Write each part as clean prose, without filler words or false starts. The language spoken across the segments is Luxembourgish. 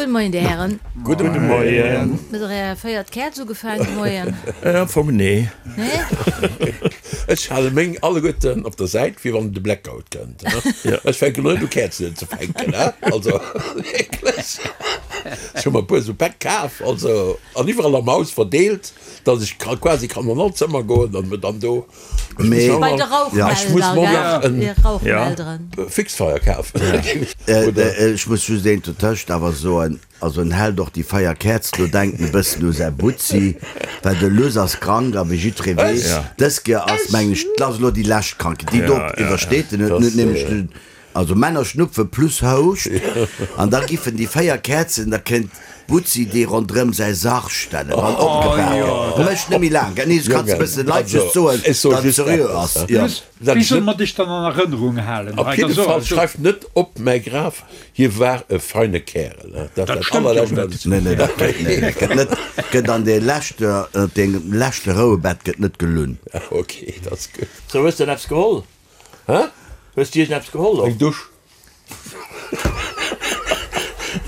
Gudde Moien, Dir Hären. Gudde Moien. Hutt Der Är véiert Käerz ugefaangen de Moien? Am Fong nee. Nee? Ech hale meng alleguerten op der Säit, fir wann de Blackout kënnt. Ech fänken elo net u Käerzen unzefänken, also wierklech. Ech hu mer e puer esou Päck kaf, also an iwwerall am Haus verdeelt, datt ech quasi kann an all Zëmmer goen an mir dann do Mee Bei de Rauchmelder, gell? Rauchmelderen. Fixfeier kafen. Ech muss just eent dotëscht awer soen, also en hält och déi 4 Käerzen do, denkt en e bëssen u säi Butzi, well de Luss ass krank a wéi jiddweree weess, dës Kéier ass, mengen ech, dat ass elo déi lescht Krankheet, déi do iwwersteet en, huet en nämlech den Also Männer schnupfe plus Houscht an da giffen déi 4 Käerzen, da kéint d'Butzi déi rondrëm säi Sarg stellen, wann opgebaach gëtt. Mécht net méi laang, gell? Nee, kanns e bëssen Leit just soen, datt et seriö ass. Jo. Wéi solle mer dech dann an Erënnerung halen? Op jidde Fall, schreift net op mäi Graf, hie war e feine Kärel. Dat stëmmt jo net. Nee, nee, dat gëtt, nee, nee, gëtt net, gëtt an dee leschte, op dengem leschte Rouebett gëtt net gelunn. Ok, dat ass gutt. Sou, hues de eppes geholl? Hä? Hues du iergend eppes geholl och? Eng Dusch.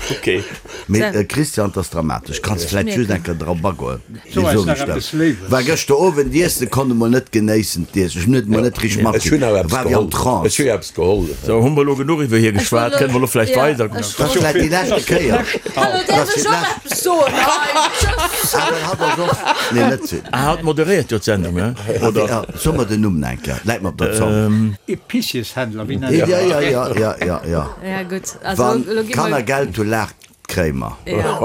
Ok. Mee Christian, 't ass dramatesch. Kanns vläit just eng Kéier drop agoen? So eis nach eppes Léiwes. War gëschter Owend iessen, konnt emol net genéissen d'Iessen. Ech hunn et emol net richteg matkritt. War wéi am Trance. Ech hu jo eppes geholl. Sou, hu mer elo genuch iwwer hie geschwat? Kënne mer elo vläicht weider? Dat ass vläit déi leschte Kéier. Hallo, däerf ech och eppes soen? Hei, tschëss. Ah, hatt ass och. Nee, net si. Ah, hatt moderéiert jo d'Sendung, he? Oder? Ja, so mer den Numm nach eng Kéier, läit mer op der Zong. Epicieshändler, wéi nennt Ja, ja, ja, ja, ja, ja. Ja, gutt. Also, Wann elo gi mer. d'Kanner Geld hu, laacht d'Kréimer. Ja.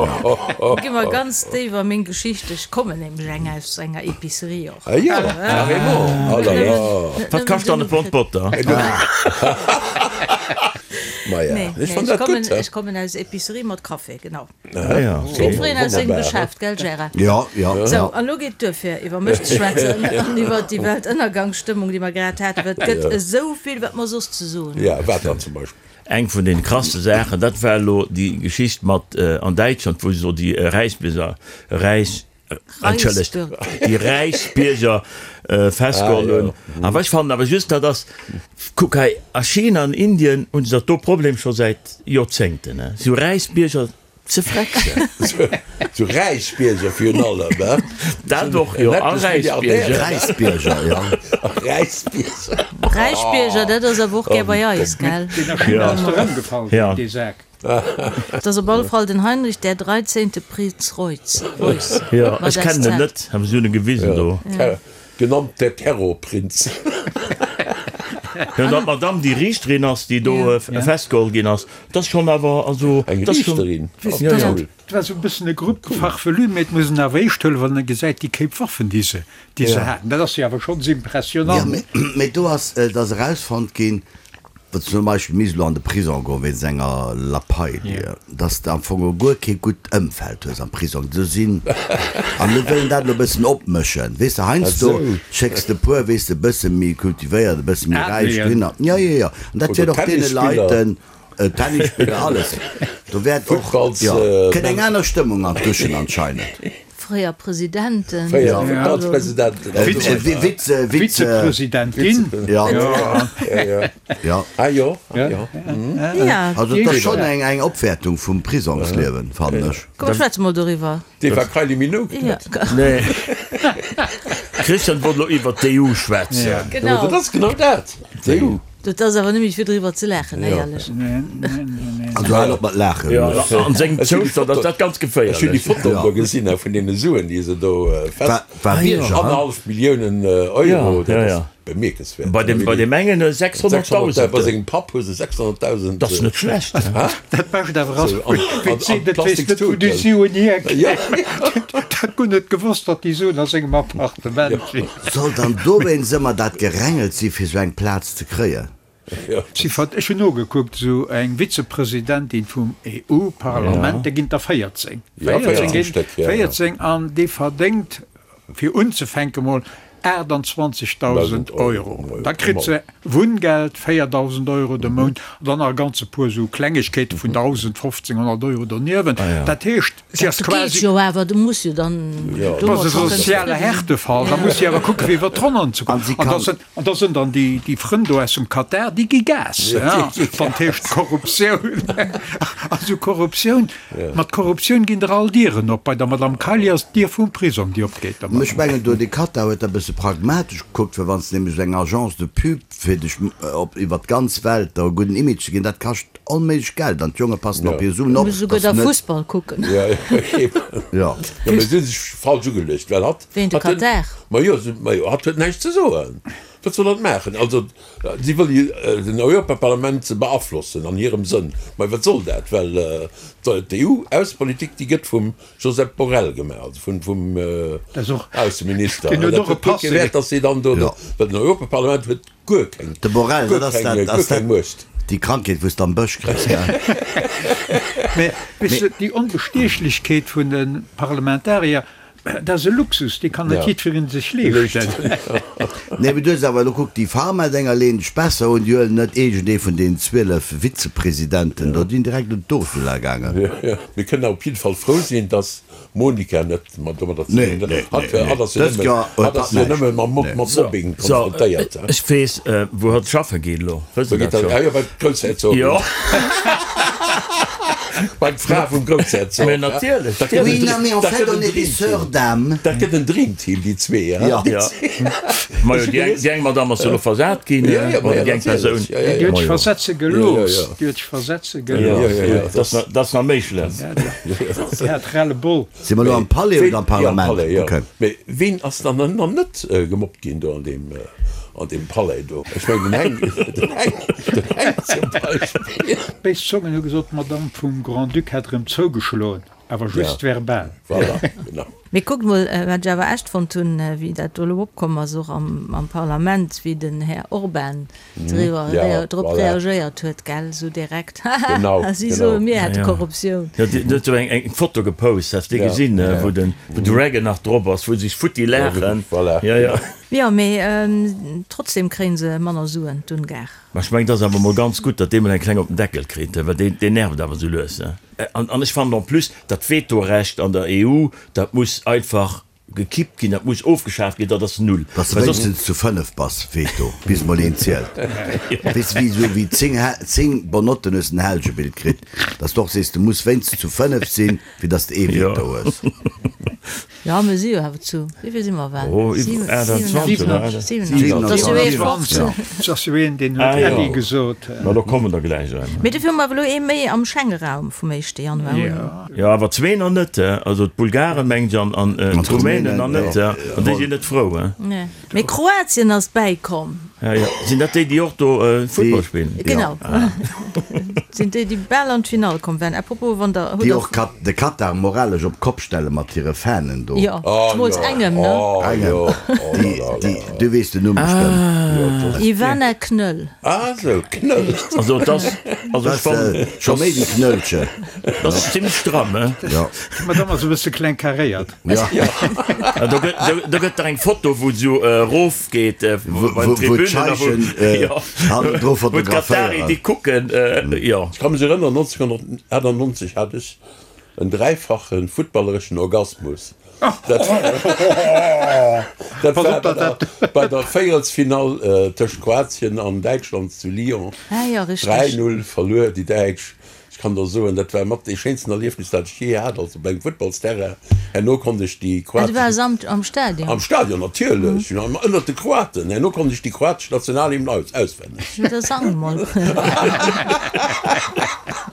Gi mer ganz déif a meng Geschicht. Ech kommen nämlech eng aus enger Epicerie och. Ah jo, carrément, oh là là. Wat kascht dann e Pond Botter? Maja, Nee, ech nee, fann ech dat gutt, kommen, he? ech kommen aus Epicerie mat Café, genau. Ah ja, okay. Jiddwereen aus sengem Geschäft, gell Gérard? Ja, ja, Sou, ja. an elo geet et duer fir iwwer mech ze schwätzen an iwwer déi Weltënnergangsstëmmung, déi mer grad haten, well et gëtt esou vill, wat mer soss ze soen hunn. Ja, wat dann zum Beispill? Eng vun den krasste Saachen, dat war elo déi Geschicht mat an Däitschland, wou se do déi Räisbierger, Räis, entschëllegt, déi Räichsbierger festgeholl hunn. Awer ech fannen awer just, dat ass, kuck hei, a China an Indien hunn se dat do Problem scho säit Joerzéngten, esou Räichsbierger ze frecksen. Esou Räichsbierger virun allem, he? Dat och, jo, a Räichsbierger. Räichsbierger, jo. Räichsbierger. Räichbierger, dat ass awer och gär bei eis, gell? Deen a China ass der ëmgefall, dee Sak. Et ass op alle Fall den Heinrich der Dreizehnte Prinz Reuß. Reuß. Jo, ech kennen en net, awer si hunn e gewisen do. Genannt der Terrorprinz. Jo, datt d'Madame déi Riichterin ass, déi do festgeholl ginn ass, dat ass schonn awer, also, Eng dat ass schonn. Riichterin? Jo, jo. Et war esou e bëssen e Grupp farfelu, mee et muss een awer eescht huelen, wann e gesäit, déi Kéip Waffen, déi se, déi se haten. Dat ass jo awer schonns impressionant. Jo, mee do ass, et ass erausfonnt ginn, Datt zum Beispill misst elo an de Prisong goen wéinst enger Lappalie, datt s de am Fong och guer kee gutt Ëmfeld hues am Prisong. Do sinn, an elo wëll een dat elo e bëssen opmëschen, weess de, heiansdo schécks de e puer, weess de, e bësse méi kultivéiert, e bësse méi räich dohinner. Jo, jo, jo, an dat wäert och deene Leiten, Tennisspiller, alles, do wäert och, jo, kënnt eng aner Stëmmung an d'Duschen anscheinend. Fréier Presidenten. Fréier Futtballspresidenten. Vize, Vize. Vizepresidentin. Ja. Ja. Ah jo, ah jo. Ja. Also et ass schonn eng eng Opwäertung vum Prisongsliewen, fannen ech. Komm schwätze mol doriwwer. Dee war Kylie Minogue net. Nee. Christian wollt elo iwwert d'EU schwätzen. Genau. Dat ass genau dat, d'EU. Dat ass awer nëmme fir driwwer ze laachen, éierlech. Also hal op mat laachen. Jo, an sengem Zoustand ass dat ganz geféierlech. Ech hunn déi Fotoen do gesinn vun deene Suen, déi se do fest. War Bierger, hein? Annerhallef Milliounen Euro, dat ass bemierkenswäert. Bei deem, bei deem engen 600.000. Bei sengem Papp hu se 600.000. Dat ass net schlecht. Dat Bescht awer ass, wéi d'See net weess net, wou déi Suen hierkéimen. Dat guer net gewosst, datt déi Suen a sengem Appartement sinn. Soll dann dowéinst ëmmer dat Gerängels si fir sou eng Plaz ze kréien? Si vert, ech hunn nogekuckt, esou eng Vizepresidentin vum EU-Parlament, där ginn der 14, 14 ginn, 14, an déi verdéngt, fir unzefänke mol. 28.000 Euro. Da kritt se Wunngeld, 4.000 Euro de Mount, an dann nach e ganze puer esou Klengegkeete vun 1.000, 1.500 Euro doniewent. Dat heescht, si ass Dat geet quasi. jo awer, du muss jo dann Dat ass domat e scho kënnen soziale zefridde sinn. Härtefall. Da muss si awer kucken, fir iwwer d'Ronnen ze kommen. An si An da kann. sinn, an da sinn dann déi, déi Frënn do aus dem Katar, déi gi Gas, ja, wann d'heescht Korruptioun. Also Korruptioun, mat Korruptioun ginn der all Dieren op. Bei der Madame Kaili ass d'Dier vum Prisong, déi opgeet. Der Ech Madame. mengen do, de Katar huet da e bësse pragmatesch gekuckt, well wann s de nämlech esou eng Agence de pub fir dech op iwwer d'ganz Welt der e gudden Image ze ginn, dat kascht onméiglech Geld an d'Jonge passen op hir Suen Du op, muss esouguer dass da net. Fussball kucken. Jo, eben. Jo. Jo, mee si hu sech falsch ugeluecht, well hatt, Ween, de hatt huet, Katar? ma jo, ma jo, hatt huet näischt ze soen. Wat soll hatt maachen? Also, si wëll jo den Europaparlament beaflossen an hirem Sënn. Mä wat soll dat? Well d'EU-Aussepolitik, déi gëtt vum Josep Borrell gemaach, also vum, vum Ausseminister. Deen huet Dat och e huet guer kee Passé. Wäert, datt si dann do, well den Europaparlament huet guer keng, De Borrell, guer dat ass keng, dat, guer ass keng dat Muecht. déi Krankheet, wou s de am Bësch kriss, gell? Mä weess de, déi Onbestiechlechkeet vun de Parlamentarier, dat ass e Luxus, dee kann net jiddweree sech leeschten. Nee, mee du hues awer elo kuck, déi Pharma-Dénger leeën dech besser un, déi huelen net iergendee vun deenen 12 Vizepresidenten do, déi sinn direkt un d'Ursula gaangen. Mir kënnen awer op jidde Fall frou sinn, dass d'Monica net mat domadder ze Nee, dinn huet. nee, Hatt nee, nee. hatt ass jo Dëst nëmme, Joer huet hatt hatt ass jo näischt. nëmme mam Mob, Nee. mat So, Mobbing so, konfrontéiert. ech weess, wou hatt schaffe geet elo. Wësst Wou Der geet dat hatt? scho? Ah jo, bei d'Groussherzogin. Jo. Bei d'Fra vum Groussherzog. Mä natierlech. Dat gëtt Oui, en non, mais en dat fait, gëtt on en est des Dreamteam. sœurs d'âme. Dat gëtt en Dreamteam, déi zwee, hein? Ja. Ja. Majo, déi eng, déi eng Madame ass jo elo versat ginn, Ja, ja, ma oder ja, déi eng Persoun. natierlech. Ja, ja, Déi ja. huet sech Majo. versetze Ja, ja, gelooss. ja. Déi huet sech versetze Ja, gelooss. Ja, ja, ja. dat ass nach, dat ass nach méi schlëmm. Déi hat Ras-le-bol. Si mer elo am Palais Ween, oder am ja, am Parlament? Palais, ja. Okay. Mee ween ass dann nach net gemobbt ginn do an deem, an deem Palais do? Ech mengen den Heng, den Heng, den Heng zum Beispill. Béis Zongen hu gesot, d'Madame vum Grand-Duc hätt erëm zougeschloen, awer just Ja. verbal. Voilà, genau. Mee kuckt mol, wat ech awer echt fonnt hunn, wéi dat do elo opkomm ass, och am Parlament, wéi den Här Orban driwwer, drop reagéiert huet, gell, esou direkt, haha, si soe mir hätte Korruptioun. Jo, deen huet esou eng Foto gepost, has de gesinn, wou den Reagan nach drop ass, wou se sech futti laachen. Jo, jo. Jo, mee trotzdem kréie se manner Suen, d'Ungar. Mä ech mengen, et ass awer mol ganz gutt, datt dee mol eng kleng op den Deckel kritt, well deen, deen nervt awer esou lues. An, an ech fannen en plus, dat Vetorecht an der EU, dat muss einfach gekippt ginn, dat muss ofgeschaaft ginn, dat ass null. Dass de Well soss. wéinstens zu 5 bass, Veto, bis mol een zielt. Weess de, wéi esou wéi 10, 10 Bonnotten hues den Helgebild kritt, dass de och sees, du muss wéinstens zu 5 sinn, fir dass de ee Veto hues. Jo, mir si jo awer zu, wéi vill si mer well? Oh, iwwer 28, oder? 27. Dat ass jo ee 15. Dat ass jo een, deen huet Ah, jo. Äddi gesot. Ma do kommen der gläich en. Mee dofir hu mer awer elo ee méi am Schengeraum vum éischte Januar un. Jo, awer zwee nach net, also d'Bulgaren, mengen ech, an d'Rumänen nach net, an déi sinn net frou. Nee. Mee Kroatien ass bäikomm. Ja, ja. Sinn dat déi, déi och do Futtball spillen? Genau. Sinn déi, déi bal an d'Finall komm waren. À propos, wann der, hutt Déi der. och Kat de Katar moralesch op d'Kopp stelle mat hire Fanen do. Jo, zemools engem, ne? Engem. Déi, déi, du weess den Numm bestëmmt. Ivana Knöll. Ah sou, Knöll. Also et ass, also ech fannen. Scho méi wéi Knöllchen. Dat ass zimlech stramm, he? Jo. D'Madame ass e bësse kleng karéiert. Ja. Ja, do gëtt, do, do gëtt der eng Foto, wou se esou erof geet bei den Tribünen a wou, jo, hannendru wou d'Katari fotograféieren. déi kucken, jo. Ech ka mech erënneren, 1998 hat ech en dräifache futtballereschen Orgasmus. Dat dat war bei der, bei der Véierelsfinall tëscht Kroatien an Däitschland zu Lyon. Ah jo, richteg. 3, 0 verluer déi Däitsch. Ech kann der soen, dat war mat dee schéinsten Erliefnis, dat ech jee hat, also beim Futtballsterrain. Herno konnt ech déi Ah, du kroatesch. waars am, am Stadion? Am Stadion, natierlech, ënnert de Kroaten. Herno konnt ech déi kroatesch Nationalhymn aus, auswenneg. Jo, da sang mol.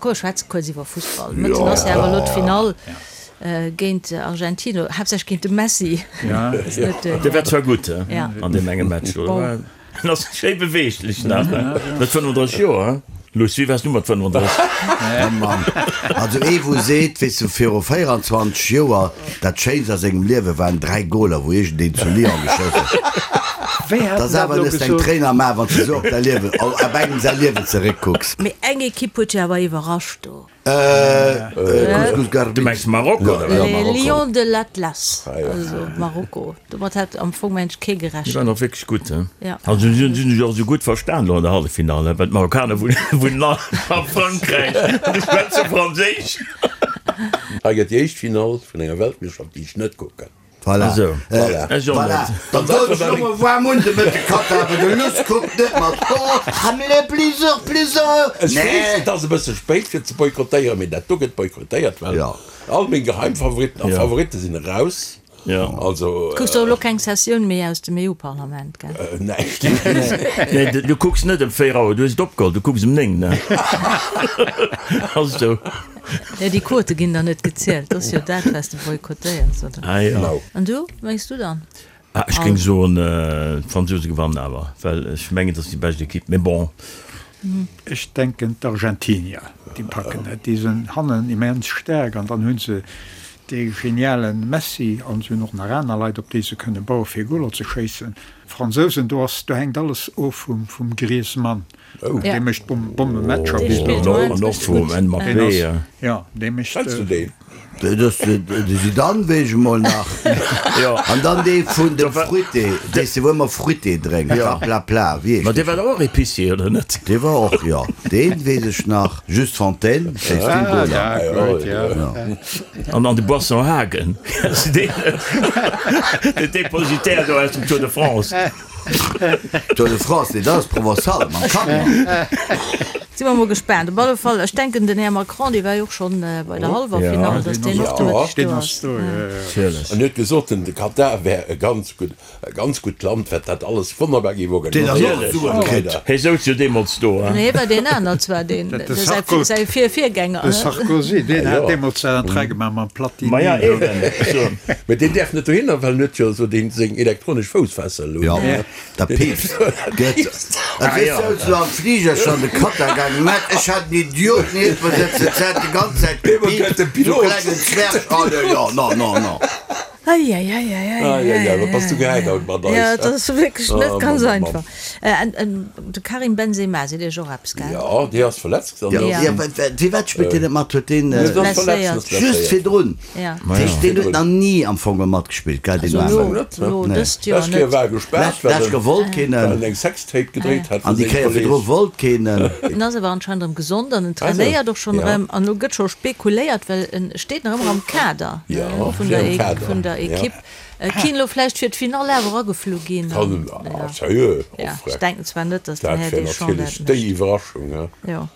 Komm, schwätze kuerz iwwer Fussball. Mëtten ass jo awer elo d'Finall géint Argentinien, haaptsächlech géint de Messi. Dee war zwar gutt an deem enge Match do. En ass schéi beweeglech nach, he? Mat 35 Joer, he? Luss, wéi waars du mat 35? Oh Mann. Also ee wou seet, weess du, viru 24 Joer, dat Schéinst a sengem Liewe waren 3 Goler wou iergendeen zu Lyon geschoss huet. Wéi hat Dat ass en dat awer elo nes deng gesot? Tréin am A wann s de sou op däi Liewen, op engem säi Liewen zeréckkucks. Mee eng Ekipp huet jo awer iwwerrascht do. Couscous Du Garbit. mengs Marokko, oder wat? Ja, Les Marokko. Lions de l'Atlas, also Marokko. Domat hat am Fong mensch kee Déi gerechent. waren och wierklech gutt, he? Ja. Also si hunn sech och esou gutt verstan elo an der Halleffinall, he? Well d'Marokkaner wunnen all a Frankräich an déi schwätze Franséisch. Hei gëtt déi éischt Finall vun enger Weltmeeschterschaft, déi ech net kucken. Voilà. Esou. Voilà. Ech och Voilà. net. Dann soll ech lo mol waarm un de Mëtte Katar, well de Luss kuckt net mat. Oh, Hamlet, plusieurs, plusieurs. Ech weess, Nee. et ass e bësse spéit fir ze boykottéieren, mee dat do gëtt boykottéiert, well Ja. all meng Geheimfavoritten a Ja. Favoritte sinn eraus. Ja. Also. Kucks och elo keng Sessioun méi aus dem EU-Parlament, gell? Näischt. Nee, du kucks net ëm 4 Auer, du hues et opgeholl, du kucks ëm 9, ne? Ass esou. Jo, déi Quote ginn der net gezielt, dat ass jo dat, wat s de boykottéiers, oder? Ah jo. Genau. An du, wat mengs du dann? Ah, ech géing soen, d'Fransouse gewannen awer, well ech mengen, et ass déi bescht Ekipp, mee bon. Ech denken d'Argentinier, déi packen et. Déi sinn hannen immens staark an dann hu se dee geniale Messi an se hunn och nach aner Leit, op déi se kënne baue fir Goler ze schéissen. D'Fransousen, do ass, do hänkt alles of vum Griezmann. Dee mécht Bommematcher. Dee spillt An och, an och vum Mbappé, ja. Jo, dee mécht. Kenns du deen? Dat ass de Zidane, weess ech emol nach. Jo. An dann dee vun dem Fruité, dee wou ëmmer Fruité drénkt, Raplapla, wéi heescht Ma dee war dach och Épicier, oder net? Dee war och, jo. Dee weess ech nach. Just Fontaine, schéisst vill Ah, Goler. ja, gutt, ja. An an de Boisson Hagen, kennst du deen net? Den Depositaire do aus dem Tour de France. Tour de France, nee, dat ass Provençal mam Camion. Si mer mol gespaant. Op alle Fall, ech denken, den Här Macron, dee war jo och schonn bei der hallwer Finall, datt deen och de Mëtteg do ass. En huet gesot, den Katar wär e ganz gutt, e ganz gutt Land, wat dat alles wonnerbar géif Deen ass och organiséieren. Suen kritt. Hie souz jo deemools do. Nee, hie war deen aner zwar, deen, säi, säi Vir-Virgänger. De Sarkozy, deen hat deemools dat Entrée gemaach mam Platini. Ma ja, eben. Mee deen däerf net dohinner, well en huet jo esou deen seng elektronesch Foussfessel un. Jo, dat piipst. Gëtt. Et wéi souz lo am Fliger schon de Katar gaangen, Mä ech hat en Idiot nieft mer sëtzen, et hat déi ganz Zäit gepiipst, sou klengen Zwerg. Oh jo, jo, non, non, non. Eieieiei. Wat bass du gehäit haut mat eis? Jo, et ass wierklech net Oh, ganz Mann, Mann, einfach. De Karim Benzema, seet Iech och eppes, gell? Jo, dee ass verletzt. Jo, jo, firwat spillt deen net mat? Huet deen Blesséiert. just virdrun? Ja. Dat heescht, deen huet nach ni am Fong matgespillt, gell, deen Also Aarmen? elo, elo dëst Joer Lescht Kéier net. war e gespaart, Lescht, lescht Kéier wollt keen well en. en eng Sextape gedréit hat An vu déi sengem Kéier Kolleeg. virdru wollt keen en. En ass awer anscheinend erëm gesond an en trainéiert och schonn Ja. erëm. An elo gëtt scho spekuléiert, well en steet nach ëmmer am Kader Ja, vun steet der am Kader, vun der ja. Ekipp. Et kéint elo vläicht fir d'Finall awer ageflu ginn. Kann en, ah, sérieux? Ja, Och ech freck. denken zwar net, datt den Dat Här wär Deschamps natierlech dat déi mécht. Iwwerraschung, he? Jo.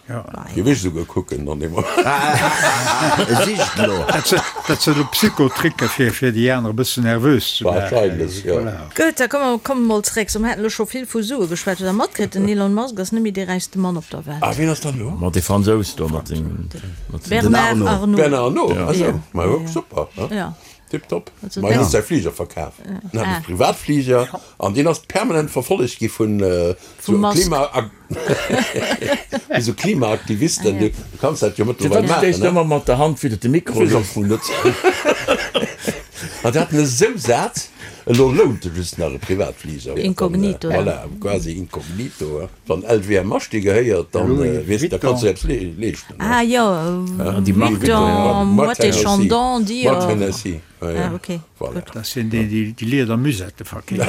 Géif ech esouguer kucken an deem Moment. E sicht elo. Dat sinn elo Psychotricke fir fir déi aner e bëssen nervös ze maachen. Wahrscheinlech, jo. Voilà. Gutt, da komme mer mol zeréck. So, mer haten elo scho vill vu Sue geschwat. Hutt Der matkritt, den Elon Musk ass net méi dee räichste Mann op der Welt. Ah, wien ass dann elo? Mat dee Fransous do, mat sengem. Bernard Arnault. Bernard Arnault, ah sou. Ja. Ma jo, super, he? Ja. Tiptop. Also Ma hien dat- huet säi Fliger verkaf. En hat e Privatfliger an deen ass permanent verfollegt gi vun Vum sou Musk. Klima vu sou Klimaaktivisten. Du kanns dat jo mëttlerweil Firwat maachen, stéisst ne? ëmmer mat der Hand widder de Mikro? Weess am Fong net. An déi haten esou sat, elo lount e just nach e Privatfliger. Inkognito, ja. Voilà, quasi inkognito. Wann LVMH dir gehéiert, dann Louis weess de, da kanns du Vuitton. eppes leeschten. Ah jo, Déi Mark Vuitton, Moët Moët et Chandon, Dior. Moët Hennessy, ja, ja. Ah, ok. Voilà. Dat sinn déi, déi déi Lieder-Musette verkeefen.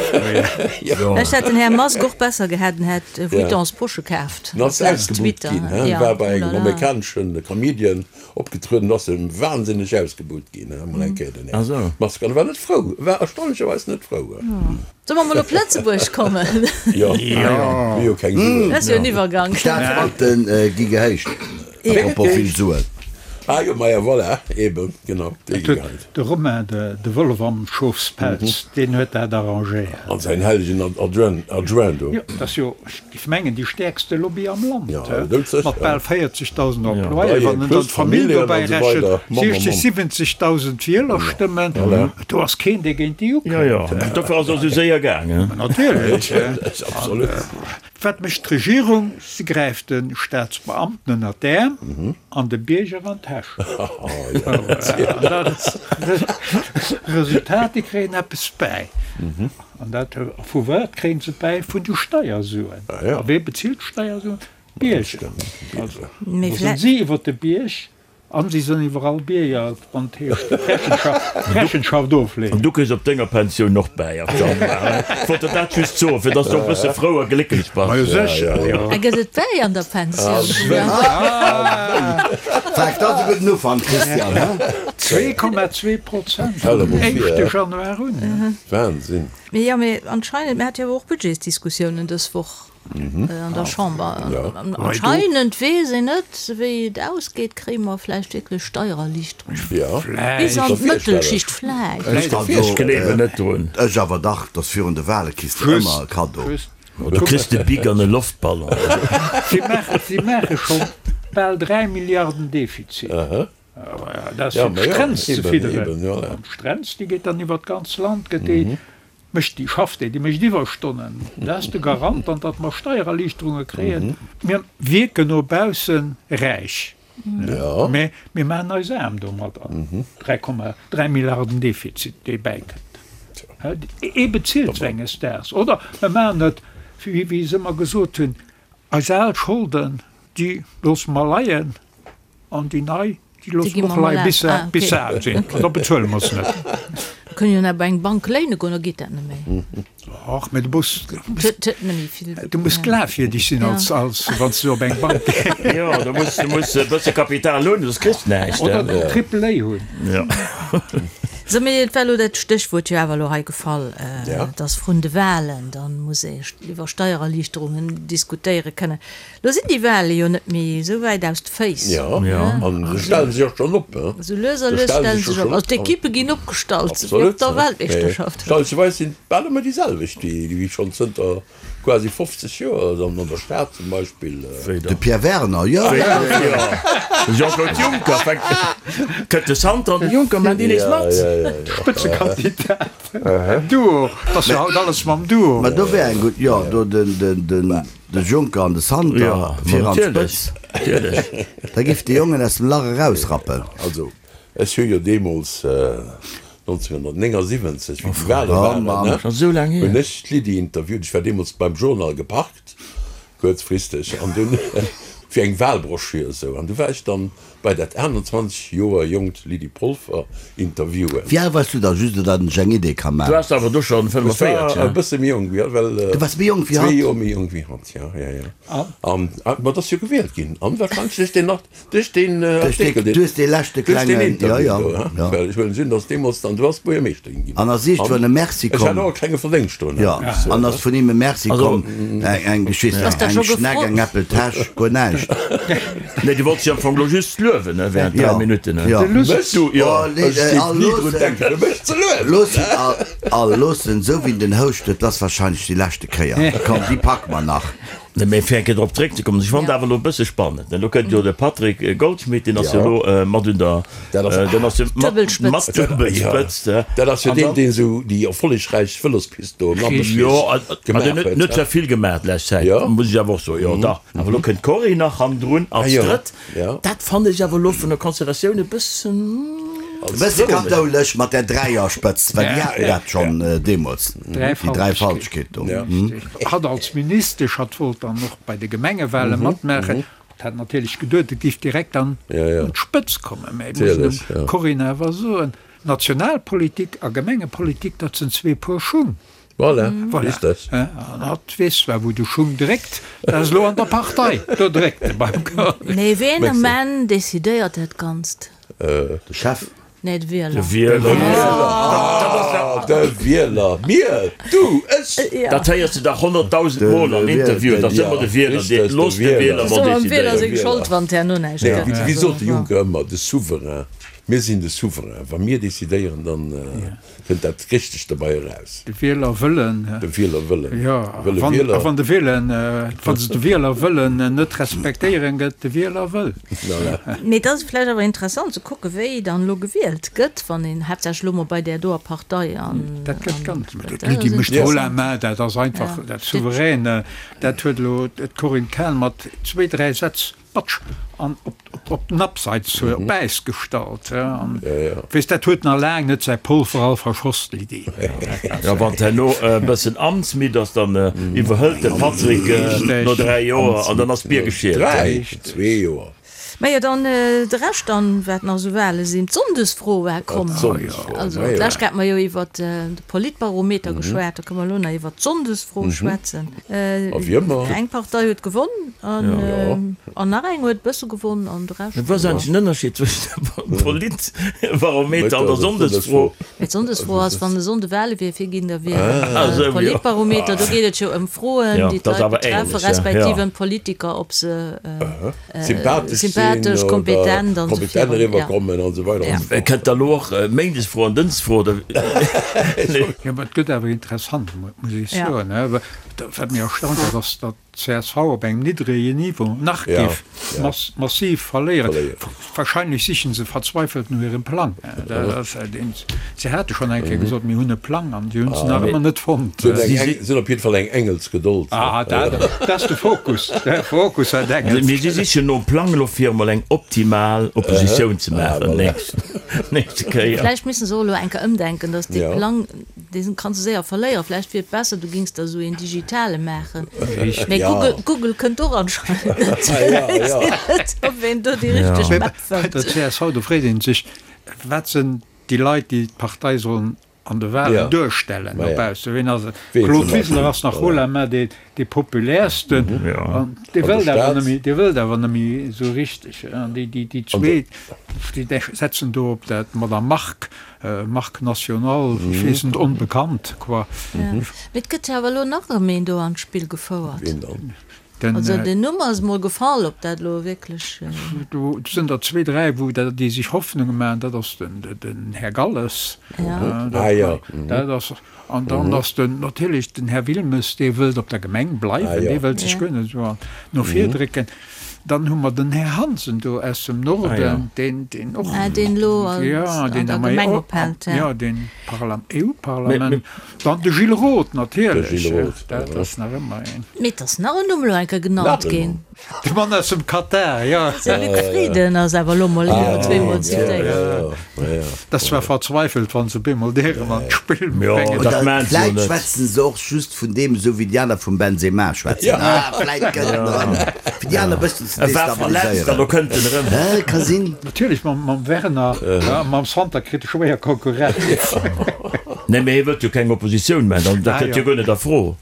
Ech hätt den Här Musk och besser gehat, en hätt Vuittons Posche kaaft. En ass ausgebuht ginn, he? Ja, War bei engem oh la la. amerikaneschen Comedian opgetrueden, ass e wahnsinneg ausgebuht ginn, he? Mol eng Kéier den Här Musk. An e war net frou, e war erstaunlecherweis net frou. Solle mer mol op Lëtzebuerg kommen? Jo, mir hu keng Suen. Dat ass jo en Iwwergank. Staatsbanke gi gehéicht. Apropos vill Suen. Ah jo, maja, voilà, eben, genau, déi gi gehéicht. De Romain, de Wollef am Schofspelz, deen huet dat arrangéiert. An säin hellegen Adjoint do. Jo, dat ass jo, ech géif mengen, déi stäerkste Lobby am Land, mat bal 40.000 Employéen. Wann en dann d'Famill dobäi rechent, 60, 70.000 Wielerstëmmen, do ass keen, dee géint déi ukënnt. Jo, jo, dofir ass och esou séier gaangen. Natierlech. Absolut. Wat mécht d'Regierung? Se gräift de Staatsbeamten ënner d'Äerm an de Bierger an d'Täsch. Resultat, déi kréien eppes bäi. An dat, vu wat kréien se bäi? Vun de Steiersuen. A wee bezilt d'Steiersuen? D'Bierger. Also, do sinn si iwwer de Bierg An si sënn iwwerall Bierger, wann et heescht Rechenschaft ofleeën. An du kriss op denger Pensioun och bäi am Januar. Ech wollt der dat just soen, fir dass du och e bësse frou a glécklech bass. Majo sécher, jo. A gëtt et bäi an der Pensioun? Fakt, dat ass e gudden Ufank, Christian, he? 2,2 Prozent vum éischte Januar un. Wahnsinn! Mee jo, mee anscheinend, mir hate jo awer och Budgetsdiskussiounen dës Woch. An der Chamber. Anscheinend weess een net, wéi et ausgeet. Kréie mer vläicht wierklech Steiererliichterungen bis an d'Mëttelschicht? Vläicht. Ech gleewen net drun. Ech awer dach, dass virun de Wahle kriss de ëmmer e Kaddo. Du kriss de Bic an e Loftballon. Si maache scho bal 3 Milliarden Defizit. Dat ass fir d'Strenz ze fidderen. An d'Strenz, déi geet dann iwwer d'ganz Land, gëtt déi Mécht déi, schafft déi, déi mécht Iwwerstonnen. Dat ass de Garant dann, datt mer Steiererliichterunge kréien. Mir wierken no bausse räich, mä mir maachen eis aarm domadder. 3,3 Milliarden Defizit, dee bäikënnt. Ee bezilt se enges Daags. Oder mer maachen et, wéi se ëmmer gesot hunn, eis al Scholden, déi loosse mer leien. An déi nei, déi loosse mer och leien, bis se, bis se al sinn. An da bezuele mer se net. Mir kënnen jo nach bei eng Bank léine goen, da geet dat net méi. Och, mä du muss, du muss glafwierdeg sinn als, als wann s du op eng Bank gees. Jo, du muss, du muss e bësse Kapital hunn, soss kriss de näischt. Oder den Triple A hunn. Jo. Sou, mee et war elo dat Stéchwuert jo awer elo hei gefall, dass vrun de Wahlen dann muss ee iwwer Steiererliichterungen diskutéiere kënnen. Lo sinn déi Wale jo net méi esou wäit aus de Féiss. Jo, an se stellen sech och schonn op. Esou lues a lues stelle se sech op. Also d'Ekippe ginn opgestallt, wéi op der Weltmeeschterschaft. Absolut. Sinn bal ëmmer déi selwecht, déi schonn zënter quasi 50 Joer an der Stad zum Beispill. De Pierre Werner, jo. De Jean-Claude Juncker fänkt, kënnt de Santer an de Juncker maachen déi nees mat. Spëtzekandidat, Duo, 't ass jo haut alles mam Duo. Mä do wär eng gutt, jo, do den. De Juncker an de Santer fir an d'Spëtz. Da giff de Jongen aus dem Lach erausrappen. Also, ech hu jo deemools 1979, wéi déi Wale waren, hunn ech d'Lydie interviewt. Ech war deemools beim Journal geparkt, kuerzfristeg, an dunn fir eng Walbroschür esou. An du war ech dann Bei dat 21 Joer jonkt Lydie Polfer interviewen. Wéi al wars du da, just datt ech eng Idee ka Du man? waars awer do schonn Ech 45, war e bësse méi jonk wéi hatt, well Du waars méi jonk wéi zwee hatt? Joer méi jonk wéi hatt, jo, jo, jo. An, ma et ass jo gewielt ginn, an wahrscheinlech duerch deen Art, duerch deen Duerch dee, Artikel, deen, du hues dee leschte duerch deen klengen, jo, Interview jo, do, ha, jo. well ech huelen un, datt deemools dann, du ass Buergermeeschterin ginn. An ass iergendwann An e Merci ech hat komm. och e klenge Verdéngscht drun, Jo, muss ech soen, an ass ha. vun him e Merci Also, komm, eng, eng, ech weess Ass net, da eng scho Schneck, gefrot? eng Äppeltäsch, guer näischt. Nee, du wollts jo am Fong lo just luewen, ne, während 3 Minutten, ne? Jo. Mech? Du, jo. Oh, nee, Ech géif all ni drun loossen, denken, fir mech ze luewen. loossen, all, all loossen, esou wéi en den Houscht huet, dat ass wahrscheinlech déi leschte Kéier. Komm, déi packe mer nach. Nee, mee fir eng Kéier drop zréckzekommen, ech fannen et awer elo e bësse spannend, ne, lo kënnt jo de Patrick Goldschmidt, deen ass jo elo mat un der, Dat ass, deen ass jo mat, Duebelspëtzt. mat Duebelspëtzt, ne. Dat ass jo An deen, dann. deen esou déi erfollegräich Vëlospist do am Lampertsbierg Jo, ma gemaach deen huet huet, net he? sou vill gemaach d'lescht Zäit, Jo. muss ech awer och soen, jo dach. Awer elo kënnt d'Corinne nach hannendrun Ah als jo, Drëtt. jo. Dat fannen ech awer elo vun der Konstellatioun e bëssen. E bësse kathoulesch mat där Dräierspëtzt, well déi haten dat schonn deemools, déi Dräifaltegkeet do. Hatt als Ministesch, hatt wollt dann och bei de Gemengewale matmaachen. Hatt hat natierlech geduet, et géif direkt an d'Spëtzt kommen. Mä et muss een dem Corinne awer soen, Nationalpolitik a Gemengepolitik, dat sinn zwee Puer Schung. Voilà, richtig. An hatt weess zwar, wou de Schung dréckt, dat ass elo an der Partei, do dréckt e beim Corinne. Mee ween um Enn decidéiert dat Ganzt? De Chef. Nee, de Wieler. De Wieler. Ah, de Wieler. Mir, du, ech. Dat héiers de dach 100.000 Mol an Interviewen, dat ass ëmmer de Wieler, dee, looss de Wieler Ass mol ëmmer dem Wieler decidéieren. seng Schold, wann et herno näischt Nee, gëtt. wéi sot de Juncker ëmmer, de Souverain. Mir sinn de Souverain. Wa mir decidéieren, dann kënnt dat Richtegt derbei eraus. De Wielerwëllen. De Wielerwëllen. Jo, Wëlle Wieler. A wann de Wielen, wa se de Wielerwëllen net respektéieren, gëtt de Wieler wëll. Voilà. Mee et ass vläicht awer interessant ze kucken, wéi dann elo gewielt gëtt, wann een haaptsächlech elo mol bei där doer Partei an. Dat gëtt ganz. D'Lydie mécht haut la main, dat ass einfach dat Souveräne. Dat huet elo d'Corinne Cahen mat zwéi, dräi Sätz Batsch an op den Abseits op Äis gestallt. Weess, dat huet nach laang net säi Polver all verschoss, d'Lydie. Jo, wann d'herno e bëssen amtsmidd ass, dann iwwerhëlt de Patrick no 3 Joer an dann ass d'Bier geschielt. Dräi? Zwee Joer. Majo, dann de Rescht dann, wat nach esou Wale sinn. D'Sonndesfro war komm. Also d'lescht Kéier hate mer jo iwwert de Politbarometer geschwat, da kënne mer elo nach iwwert d'Sonndesfro schwätzen. Eng Partei huet gewonn an nach eng huet e bësse gewonn an de Rescht. Wat ass eigentlech den Ënnerscheed zwëschen dem Politbarometer an der Sonndesfro? Mee d'Sonndesfro ass, wann e Sonnde Wale wier, fir ginn der wielen. Politbarometer, do geet et jo ëm Froen, déi d'Leit betreffen, respektiv ëm d'Politiker, ob se Sympathesch sinn oder kompetent eriwwerkommen an esou weider an esou fort. Kënnt da elo och Méindesfro an Dënschdesfro oder? Jo, mä et gëtt awer interessant, muss ech soen. Wat mech erstaunt huet, ass, datt d'CSV op engem niddrege Niveau nach géif massiv verléieren. Wahrscheinlech sichen se verzweifelt no hirem Plang. Se hate schonn eng Kéier gesot, mir hunn e Plang, an si hunn se nach ëmmer net fonnt. Se hunn op jidde Fall eng Engelsgedold. Ah, dat ass de Fokus. De Fokus hat Engels. Mee si sichen nom Plang elo fir emol eng optimal Oppositioun ze maachen nächste Kéier. Vläicht missen se och elo eng Kéier ëmdenken, datt dee Plang, dee kanns de séier verléieren. Vläicht wier et besser, du gings der esou een digitale maachen. Mee Google, Google kënnt och anscheinend net. Ech weess net, ob een do déi richteg Map fënnt. Bei der csv, do freet ee sech, wat sinn déi Leit, déi d'Partei sollen an de Wahlen duerstellen no baussen. Ween ass et? Claude Wiseler ass nach haut la main dee, dee populärsten. An dee wëllt awer net méi, dee wëllt awer net méi esou richteg. An déi, déi, déi zwee, déi setzen do op dat Madame Margue, Marque nationale, ech weess net, onbekannt, quoi. Mee et gëtt jo awer elo nach erëm een do an d'Spill gefouert. Ween dann? Den, Also den Numm ass mol gefall, ob dat elo wierklech. Do sinn der zwee, dräi, wou déi sech Hoffnunge maachen. Dat ass den, den Här Galles. Ja. Ah jo. Dat ass, an dann ass den, natierlech den Här Wilmes, dee wëllt op der Gemeng bleiwen, dee wëllt sech guer net esou no vir drécken. Dann hu mer den Här Hansen do aus dem Norden, deen, deen och. Ah, deen elo an der Gemeng ophält, ja. Ja, deen EU-Parlament. Dann de Gilles Roth natierlech, dat ass nach ëmmer een. Mee et ass nach en Numm elo eng Kéier genannt ginn. De Mann aus dem Katar, jo. De Luc Frieden ass awer elo mol een oder zweemol zitéiert. Dat ass zwar verzweifelt, wann se op eemol dee erëm an d'Spill bréngen. Oder vläit schwätzen se och just vun deem, esou wéi déi aner vum Benzema schwätzen. Ah, vläit gëtt en erëm, fir déi aner e bëssen ze E war verletzt an elo kënnt en erëm. Hä, ka sinn. Natierlech, mam Werner a mam Santer kritt e schwéier Konkurrenz. Nee, mee hie wëllt jo keng Oppositioun maachen, dat kënnt jo guer net a Fro.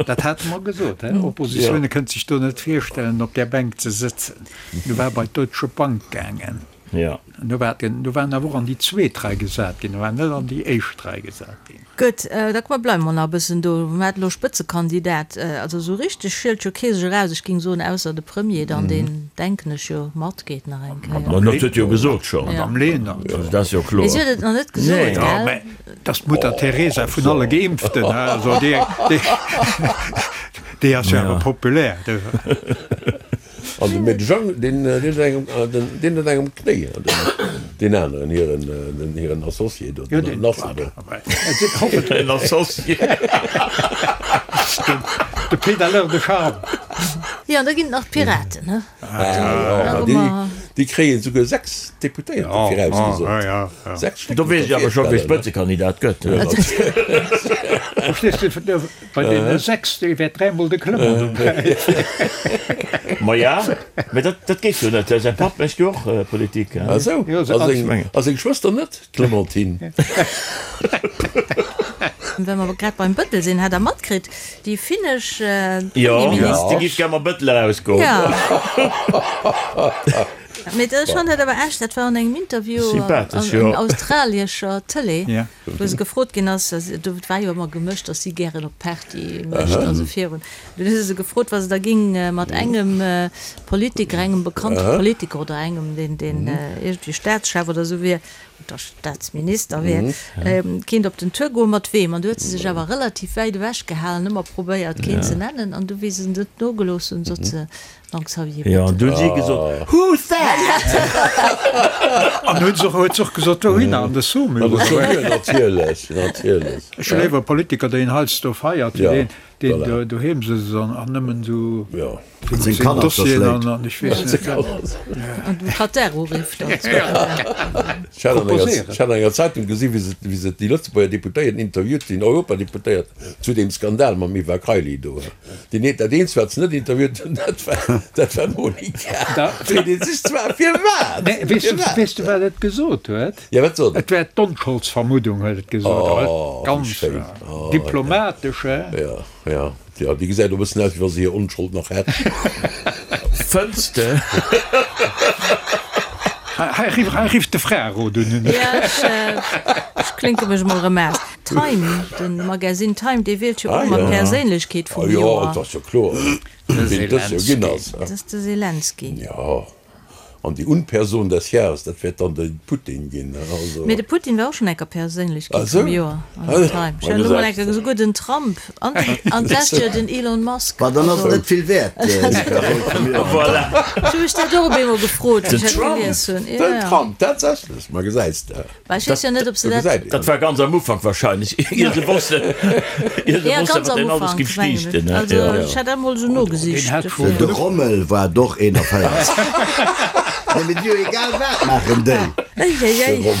Dat hate mer gesot, he? Oppositioun, e kënnt sech do net virstellen, op där Bänk ze sëtzen. Du war bei d'Deutsche Bank gaangen. Jo. Du war den, du war en awer och an déi zweet Rei gesat ginn, e war net an déi éischt Rei gesat ginn. Gutt, da komm mer bleiwe mer nach e bëssen do. Mer haten elo Spëtzekandidat, also esou richteg schielt jo kee sech eraus, ech géing soen, ausser de Premier dann, deen, denken ech, jo matgeet nach eng Kéier. Ma dat huet jo gesot schonn. Madame Lenert. Also dat ass jo kloer. Mee si huet et nach net gesot, gell? Mä dat ass d'Mutter Teresa vun alle Geimpften, also déi, déi, déi ass jo awer populär. An de Med Jang, deen huet engem, deen huet engem Knéi, deen aneren, hiren, hiren Associé do, den Lasse do. En Associé. De Pédaleur de charme. Jo, an da ginn et nach d'Piraten, ne? Ah jo, ma déi, déi kréien esouguer 6 Deputéierter virausgesot. 6 Stéck. Do weess ech awer scho, wie Spëtzekandidat gëtt. Verstees du? Bei deene 6, dee wäert dräimol de Clement dobäi sinn. Maja, mä dat, dat geet jo net. Säi Papp mécht jo och Politik. Ah sou, a seng Schwëster net, d'Clementine? Well mer grad beim Bëttel sinn, hat Der matkritt, déi finnesch Premierminister. Jo, déi géif gär mam Bëttel erausgoen. Jo. Mee ech fannen dat awer echt, dat war an engem Interview an australiescher Tëlee, wou se gefrot ginn ass, do war jo ëmmer gemëscht, datt si gären op Party mécht, also virun, dunn hu se se gefrot, wa se da géing mat engem Politiker, engem bekannte Politiker oder engem, deen deen iergendwéi Staatschef oder esou wier, oder Staatsminister wier, kéint op den Tour goen, mat weem? An du huet se sech awer relativ wäit ewech gehalen, ëmmer probéiert keen ze nennen, an du wéi se net nogelooss hunn, sot se, Donc Xavier Jo, an du hunn si gesot, Who's that? An huet se och, huet se och gesot, wouhinner? An de Saumur, An de Saumur, natierlech, natierlech. Ech hu léiwer e Politiker, deen heiansdo feiert, wéi deen, deen do doheem sëtzt an, an nëmmen esou Jo. Seng seng Kanner Dossieren verschléit. an, an ech weess net wat. An dem Katar urifft. Ech hat an enger, ech hat an enger Zeitung gesi wéi se, wéi se déi Lëtzebuerger Deputéierten interviewt, den Europadeputéiert zu deem Skandal mam Eva Kaili do. Deen eent, dat eenzegt, wat se net interviewt hunn, dat war, dat war d'Monica. Da. Freet ee sech zwar, firwat? Nee, weess du, Firwat? weess du, wat et gesot huet? Ja, wat sot et? Et wär d'Onscholdsvermuddung, huet et gesot. Oh, wéi Ganz schéin. Oh, ja. diplomatesch, hä? Ja, ja, ja, déi gesäit och e bëssen aus, wéi wa se hir Onschold nach hätt. Fënns de? Hei, hei rifft de Frärot un. Ja, ech, ech klinke mech emol erëm aus. Time, de Magazine Time, dee wielt jo och ëmmer d'Perséinlechkeet vum Joer. Ah jo, dat ass jo kloer, ween dës Joer ginn ass. Dat ass de Zelensky. Jo, an déi Unperson des Jahres, dat wäert dann de Putin ginn. Also. Mee de Putin war och schonn enker Perséinlechkeet vum Joer an der Time. Ech hat elo mol enker esouguer den Trump an an d'lescht Joer den Elon Musk. Ma dann ass et net vill wäert, déi Persoun vum Joer. Voilà. Ech hu mech dat och op eemol gefrot, wéi Den ech dat Trump! gelies hunn. Den Trump, tatsächlech, ma gesäis de. Well ech weess jo net, ob se dat. Dat war ganz am Ufank wahrscheinlech, ier se wossten, ier se Ja, wossten, ganz wat am deen alles Ufank, géif mengen ech. stiichten. Also ech hat dat emol esou nogesicht. De Rommel war et och 41. Nee, mee déi jo egal wat maachen déi. Eieiei.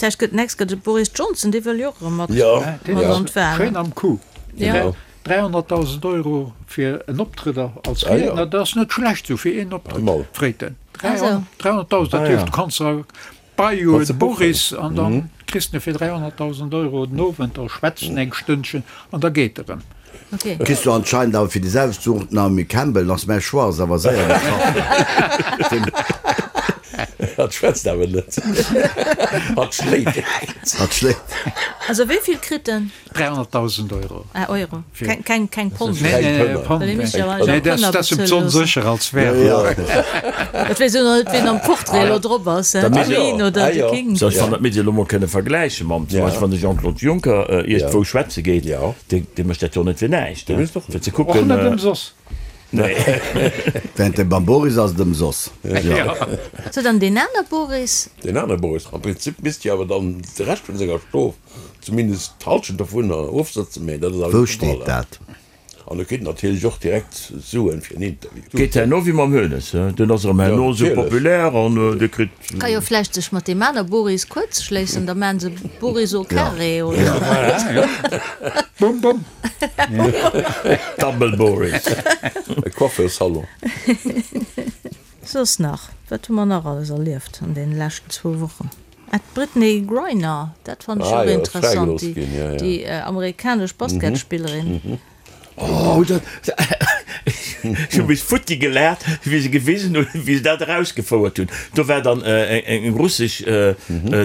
Vläicht gëtt next gëtt et Boris Johnson, dee wëll jo och erëm mat mat an d'Wahlen. Schéin am Coup. Ja. 300.000 Euro fir en Optrëtt als Riedner, dat ass net schlecht esou fir een Optrëtt, freet en. 300.000, dat heescht, du kanns der Bei un Boris an dann kriss de fir 300.000 Euro den Owend, da schwätzt en eng Stënnchen an da geet e rëm. Kriss du anscheinend awer fir déi selwecht Su och d'Naomi Campbell, ass mäi Choix ass awer séier getraff ginn. Hatt schwätzt awer net, hatt schléit direkt. Hatt schléit. Also wéi vill kritt en? 300.000 Euro. Ah, Euro. Keng, keng, keng Pond. Nee, nee, nee, Pond. Well ee misst jo Nee, eigentlech dat Pënner ass em bezuele ze loossen. onsécher als Währung. Et weess jo nach net, wien am Portrait elo drop ass, Da misst d'Queen jo. oder Ah de jo. King. So, ech fann, dat misst ee elo mol kënne vergläiche mam, zum Beispill wann de Jean-Claude Juncker iergendwou schwätze geet, dee, dee mécht dat jo net fir näischt, Dee mécht och fir ze Och kucken. net ëmsoss. Nee. Während dem beim Boris ass et ëmsoss. So, dann deen aner Boris. Deen anere Boris. Am Prinzip misst jo awer dann de Rescht vun senger Strof Zumindest d'Halschent dovunner ofsëtzen, mee dat ass awer Wou net de Fall. steet dat? An e kritt natierlech och direkt Suen fir en Interview. Geet herno wéi mam Hoeneß, he? Deen ass erëm herno esou populär an dee kritt. Ka jo vläicht sech mat deem aner Boris kuerz schléissen, da maachen se Boris au carré oder. Voilà, ja. Bum, bum. Double Boris. E Coiffeursalon. Soss nach, wat hu mer nach alles erlieft an deene leschten zwou Wochen? Ah, d'Brittney Griner, dat fannen ech Ah och jo, ass interessant, fräigelooss ginn, ja, ja. déi amerikanesch Basketspillerin. Oh, dat, ech hu mech futti gelaacht, wéi se gewisen hunn, wéi se dat erausgefouert hunn. Do war dann eng russesch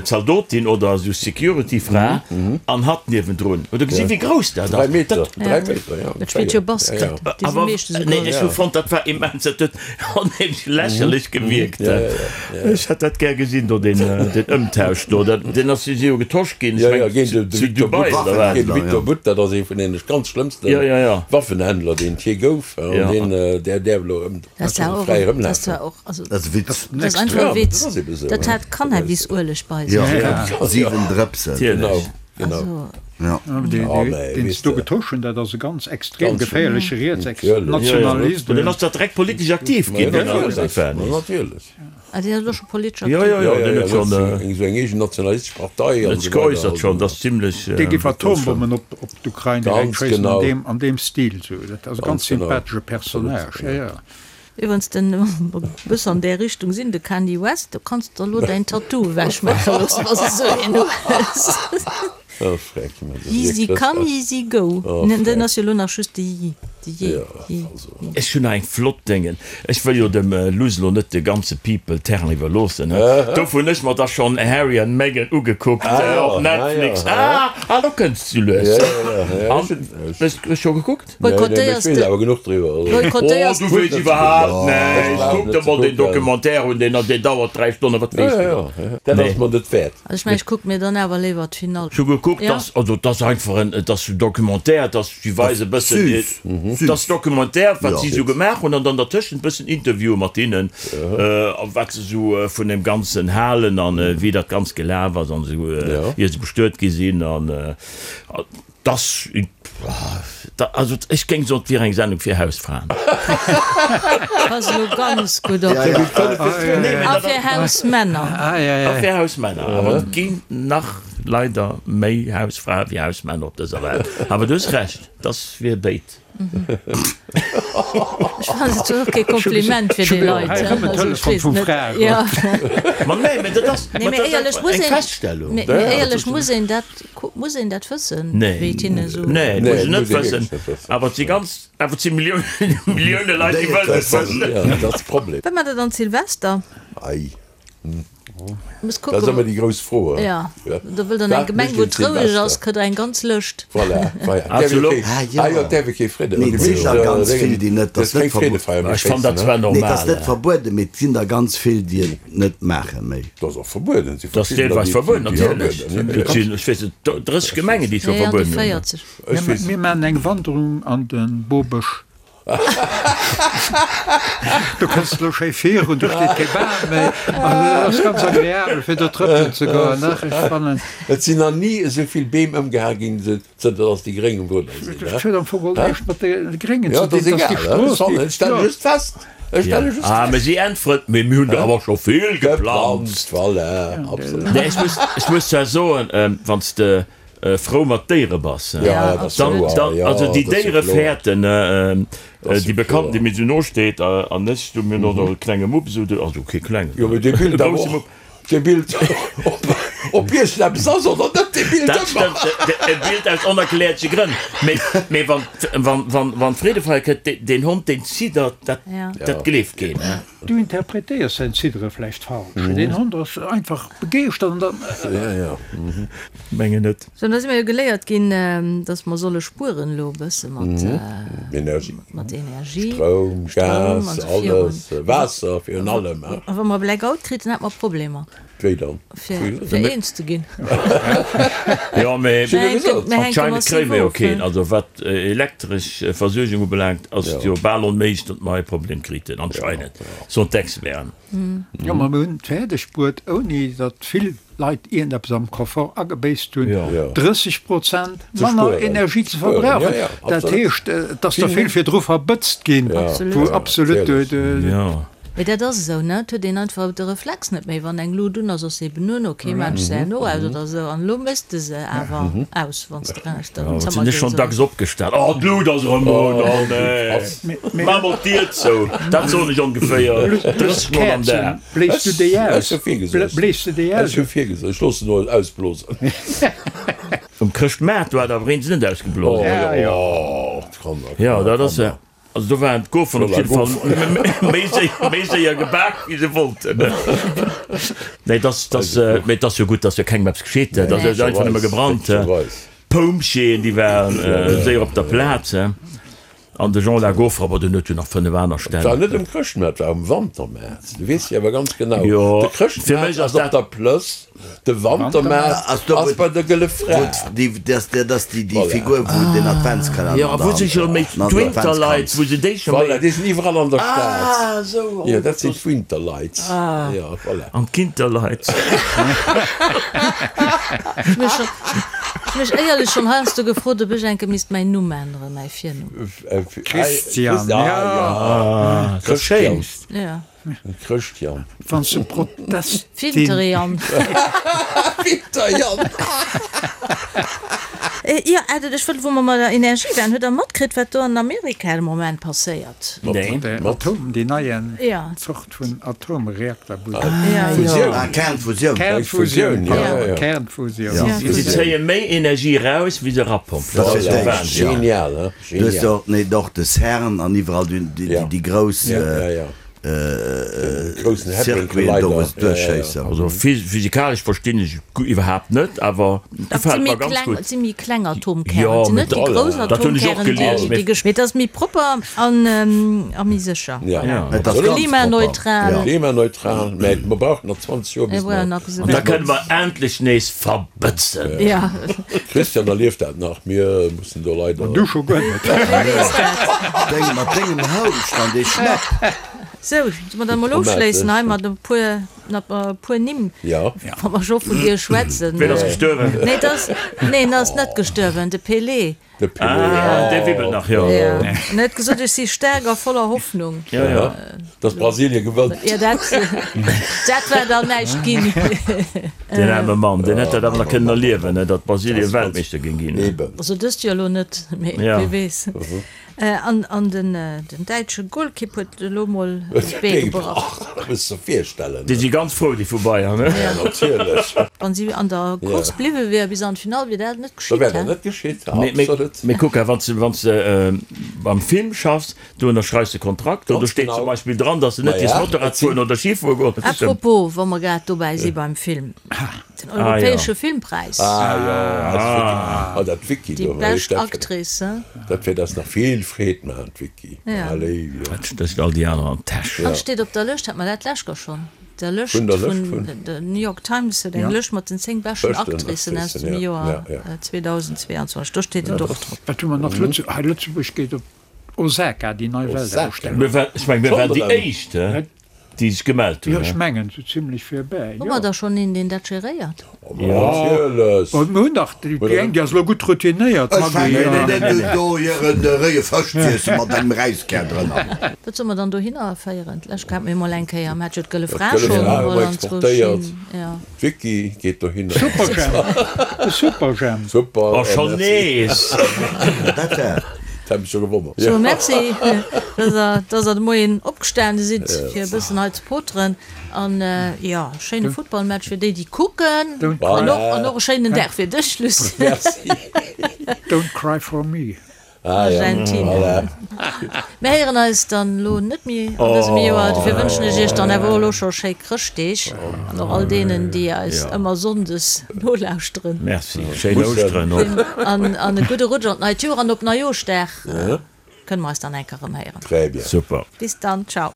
Zaldotin oder esou Security-Fra an hatt niewendrun. Hutt Der gesinn, wéi grouss dat ass? Dräi Meter, dräi Meter, ja. Dat spillt jo Basket, déi si meeschtens esou Nee, grouss. ech hu fonnt, dat war immens, dat huet onheemlech lächerlech gewierkt. Ech hätt dat gär gesinn do, deen Ëmtausch do. Deen ass si jo getosch ginn, ech mengen zu Dubai oder wat? Géint de Victor Bout, dat ass ee vun deene ganz schlëmmste Waffenhändler, deen et jee gouf. An deen, där däerf elo erëm fräi erëmlafen. Dat ass e Witz. Dat ass einfach e Witz. Dat hat Cannabisueleg bei sech. Jo, 7 Drëpsen. Genau. Genau. Ja. Deen se do getosch hunn, dat ass e ganz extrem geféierleche Rietsnationalist. Deen ass da direkt politesch aktiv ginn. Natierlech. Ah, deen ass elo scho politesch aktiv? Jo, jo, jo, deen huet schonn. Esou eng eegen nationalistesch Partei an esou weider. Huet sech geäussert schonn, dat ass zimlech. Dee géif Atombommen op d'Ukrain direkt schéissen, an deem Stil esou. Dat ass e ganz sympathesche Personnage, jo, jo. Iwwerens den e bësse an där Richtung sinn, de Kanye West, do kanns de der elo däin Tattoo ewech maache loossen, wa s de esou een hues. Yeezy come, Yeezy go. Den ass jo elo nach just de Yee. De Yee, Yee. Ech hunn nach eng flott Déngen. Ech wëll jo dem Luss elo net de ganze People Terrain iwwerloossen, he. Dofir hunn ech mer da schonn Harry and Meghan ugekuckt op Netflix. Ah, ah, do kënns du lues. An, hues du scho gekuckt? Boykottéiers de. Oh, du weess iwwerhaapt näischt. Kuck der mol deen Documentaire un, deen deen dauert 3 Stonnen, wat weess du dann? Dat ass mer net wäert. Also ech mengen, ech kucke mir dann awer léiwer d'Finall. Ech hu gekuckt, dass, also et ass einfach en, et ass Documentaire, et ass, si weise e bëssen, et ass Documentaire, wat si esou gemaach hunn an dann dertëschent e bëssen Interviewe mat hinnen, a wat se esou vun deem Ganzen halen an wéi dat Ganzt gelaf ass an esou, ier se bestuet gi sinn an. Dass, also ech géing soen, et wier eng Sendung fir Hausfraen. Pass elo ganz gutt op. A fir Hausmänner. A fir Hausmänner. Awer et ginn nach leider méi Hausfrae wéi Hausmänner op dëser Welt. Awer du hues Recht, dass wier béid. Ech fannen et och kee Kompliment fir déi Leit. Hei rëm en Telefon vum Fra. Ma nee, mä dat ass eng Feststellung. Mee éierlech, muss een dat, muss een dat wëssen, wéi et hinne esou. Nee, nee, muss een net wëssen. Awer et si ganz, awer et si Milliounen, Millioune Leit, déi wëllen et wëssen. Dat ass de Problem. Wat maacht Der dann Silvester? Ei. Muss kucken. Dat ass ëmmer déi grouss Fro. Ja, do wëllt an eng Gemeng, wou et roueg ass, kritt der eng ganz Lëscht. Voilà, voilà. Ah jo, däerf ee kee Fridde. Mee et sinn der ganz vill, déi net, dat ass net verbueden. Ech fannen dat zwar normal. Nee, et ass net verbueden, mee et sinn der ganz vill, déi et net maache méi. Dat ass och verbueden. Dat ass deelweis verbueden, natierlech. Et sinn, ech weess net, 30 Gemengen, déi et scho verbueden hunn. 40. Mir maachen eng Wanderung an de Bobësch. Do kënns de lo schéi virun, do steet kee Bam méi. Also dat ass ganz agreabel fir do trëppelen ze goen. Ach, ech fannen. Et sinn nach ni esou vill Beem ëmgehae ginn, zënter datt déi Gréng um Rudder sinn. Dat huet am Fong och näischt mat de Gréngen ze dinn, datt déi Strooss, déi. Ech stelle just fest, ech stelle just fest. Ah, mä si äntweren, Mee mir hunn der awer scho vill geplanzt. Voilà, absolut. Nee, ech muss, ech muss zwar soen, wann s de frou mat Déiere bass, dann, dann, also déi Déiere fäerten, déi Bekannten, déi mir esou no steet, an ech, du, mir hunn och nach e klenge Mupp, esou, also kee klengen, Jo, mee dee e Bild awer grousse och, Mupp. dee Bild, ob, ob iergendeppes ass oder net, dee Bild Dat ëmmer. stëmmt, e Bild aus onerklärleche Grënn. Mee, mee wann, wann, wann, wann d'Freedefeier kënnt, deen, deen Hond, deen ziddert, dat, dat gleeft keen. Du interpretéiers säin Ziddere vläicht falsch. Deen Hond ass einfach begeeschtert an dann. Mengen net. Sou, da si mer jo geléiert ginn, dass mer solle spueren elo e bësse mat mat Energie, Stroum, Gas, alles, Waasser virun allem. A wa mer e Blackout kriten, hätte mer Problemer. Wéi dann? Fir eens ze ginn. Jo, mee anscheinend kréie mer jo keen. Also wat elektresch Versuergung ubelaangt, ass et jo bal onméiglech, datt mer hei e Problem kriten, anscheinend, soen d'Experten. Jo, ma mir hunn et fäerdeg bruet, ouni datt vill Leit iergendeppes am Confort agebéisst hunn, 30 Prozent manner Energie ze verbrauchen. Dat heescht, et ass der vill virdru verbëtzt ginn, wou absolut de. Mee dat ass esou, ne? Et huet een einfach de Reflex net méi. Wann eng Lut un ass, ass se eben un, ok, maan ech se herno aus oder esou. An elo méchs de se awer aus, wann s de eraus an den Zëmmer gees. Sinn ech schonn dacks opgestan, oh d'Lut ass erëm un, oh nee, maach mol d'Dier zou. Dat soen ech ongeféier 30 mol am Dag. Bléis du déi aus? Bléis du déi aus? Ech hu virgesot, ech loossen elo ausblosen. Um Chrëschtmaart, do hat awer een se net ausgeblosen. Jo, dat ass. Also do waren d'Goferen op jidde Fall méi séier, méi séier gebak, wéi se wollten. Nee, dass, dass, mee et ass jo gutt, dass jo kengem eppes geschitt, dat ass einfach nëmme gebrannt. D'Pompjeeën, déi waren séier op der Plaz. An de Jean la Gaufre, awer deen huet jo nach 5 aner Stänn. Et war net um Chrëschtmaart, et war um Wantermaart. Du weess jo awer ganz genau, de Chrëschtmaart ass op der Plëss, de Wantermaart ass bei der Gëlle Fra. Dat ass déi Figur, wou den Adventskalenner Jo, a wou se scho méi d'Winterlights, wou se déi scho méi. Voilà, déi sinn iwwerall an der Stad. Jo, dat sinn d'Winterlights. Jo, voilà. An d'Kinterlights. Ech hu mech éierlech schonn heiansdo gefrot, ob ech enke misst mäin Numm änneren, mäi Virnumm. Christian, ja. Christian. Ja. Christian. Wann s de Protestin. Winterjan. Winterjan. Jo, Edith, ech wëll, wou mer bei der Energie waren, hutt Der matkritt, wat do an Amerika de Moment passéiert? Nee. Atom, déi nei Zort vun Atomreakter. Fusioun. Ah, Kernfusioun. Kernfusioun, pardon, Kernfusioun. Si zéie méi Energie eraus, wéi se erapompen. Dat ass jo Wahnsinn. Genial, hein? Du hues jo och, nee, och de CERN an iwwerall déi grouss. Circuiten do wou se duerchschéissen. Also physikalesch verstinn ech iwwerhaapt net, awer gefält mer ganz gutt. Et si méi kleng Atomkären, et sinn net déi grouss Atomkären, déi gesch. Mee et ass méi propper an a méi sécher. Et ass ganz propper. Klimaneutral. Klimaneutral, mä mer brauchen nach 20 Joer bis mer. An da kënne mer endlech nees verbëtzen. Christian erlieft dat nach, mir mussen do leider. Du scho guer net. Deng mat dengem Houscht an dee Schnapp. Sou, solle mer dann emol ofschléissen hei mat e puer, mat e puer Nimm, wa mer scho vun dir schwätzen. Ween ass gestuerwen? Nee, et ass, nee, en ass net gestuerwen, de Pelé. De Pelé, ah, dee wibbelt nach, jo. Jo, en huet gesot, ech si staark a voller Hoffnung. Jo, jo. Dass Brasilien gewënnt. Jo, dat, dat war dann näischt ginn. Deen aarme Mann, deen hätt dat awer nach kënnen erliewen, datt Brasilien Weltmeeschter géing ginn. Eben. Also dëst Joer elo net, mee wie weess. An an den däitsche Golkipp huet elo mol d'Bee gebrach. Dat muss de virstellen. Déi si ganz frou, déi vu Bayern, ne? Ja, natierlech. Wann si an der Course bliwwe wier bis an d'Finall, wier dat net Da geschitt, wär dat he? net geschitt, absolut. Mee kuck, wann s de, wann s de beim Film schaffs, do ënnerschreifs de Kontrakt, do steet zum Beispill dran, datt s de net dierfs Motorrad fueren oder Ski fuere goen. Apropos, wa mer grad dobäi si beim Film. Den europäesche Filmpräis. Ah jo, ah dat Vicky do. Déi bescht Actrice, hein? Dat wäert eis nach vill Freed maachen, d'Vicky. Halleluja. Dat stécht all déi aner an d'Täsch. An steet op der Lëscht, hat mer dat d'lescht Joer schonn, der Lëscht vun der New York Times huet eng Lëscht mat den 10 beschten Actricen aus dem Joer 2022, do steet et och drop. Wat hu mer nach? Hei Lëtzebuerg geet op Osaka, déi nei Weltausstellung. Ech mengen, mir waren déi éischt, déi sech gemellt hunn. Jo, ech mengen, sou zimlech virbäi, jo. Hu mer da schonn een, deen dat geréiert? Natierlech. Mir hunn dach déi eng, déi ass elo gutt routinéiert, Ech fänken net un, do hiren réie Fësch z'iessen mat engem Räiskär drënner. Wat solle mer dann dohinner féieren? D'lescht hate mir emol eng Kéier, mir hat jo d'Gëlle Fra schonn emol anzwousch hin, jo. D'Vicky geet dohinner. Superjhemp! De Superjhemp! Super! Oh, schon nees! Dat war. Dat hat mech scho gewonnert. Sou, merci, dass der, dass der de Moien opgestane sidd, fir e bëssen hei ze poteren. An, jo, schéine Futtballmatch fir déi, déi kucken. An och, an och e schéinen Dag fir dech, Lucien. Merci. Don't cry for me. Argentinien. Mir héieren eis dann elo net méi an dësem Joer. Dofir wënschen ech iech dann awer och elo scho schéi Chrëschtdeeg an och all deenen, déi eis ëmmer sonndes nolauschteren. Merci, schéin Ouschteren och. An e gudde Rutsch an d'neit Joer an op Neijooschdag kënne mer eis dann eng Kéier erëm héieren. Très bien. Super. Bis dann, ciao.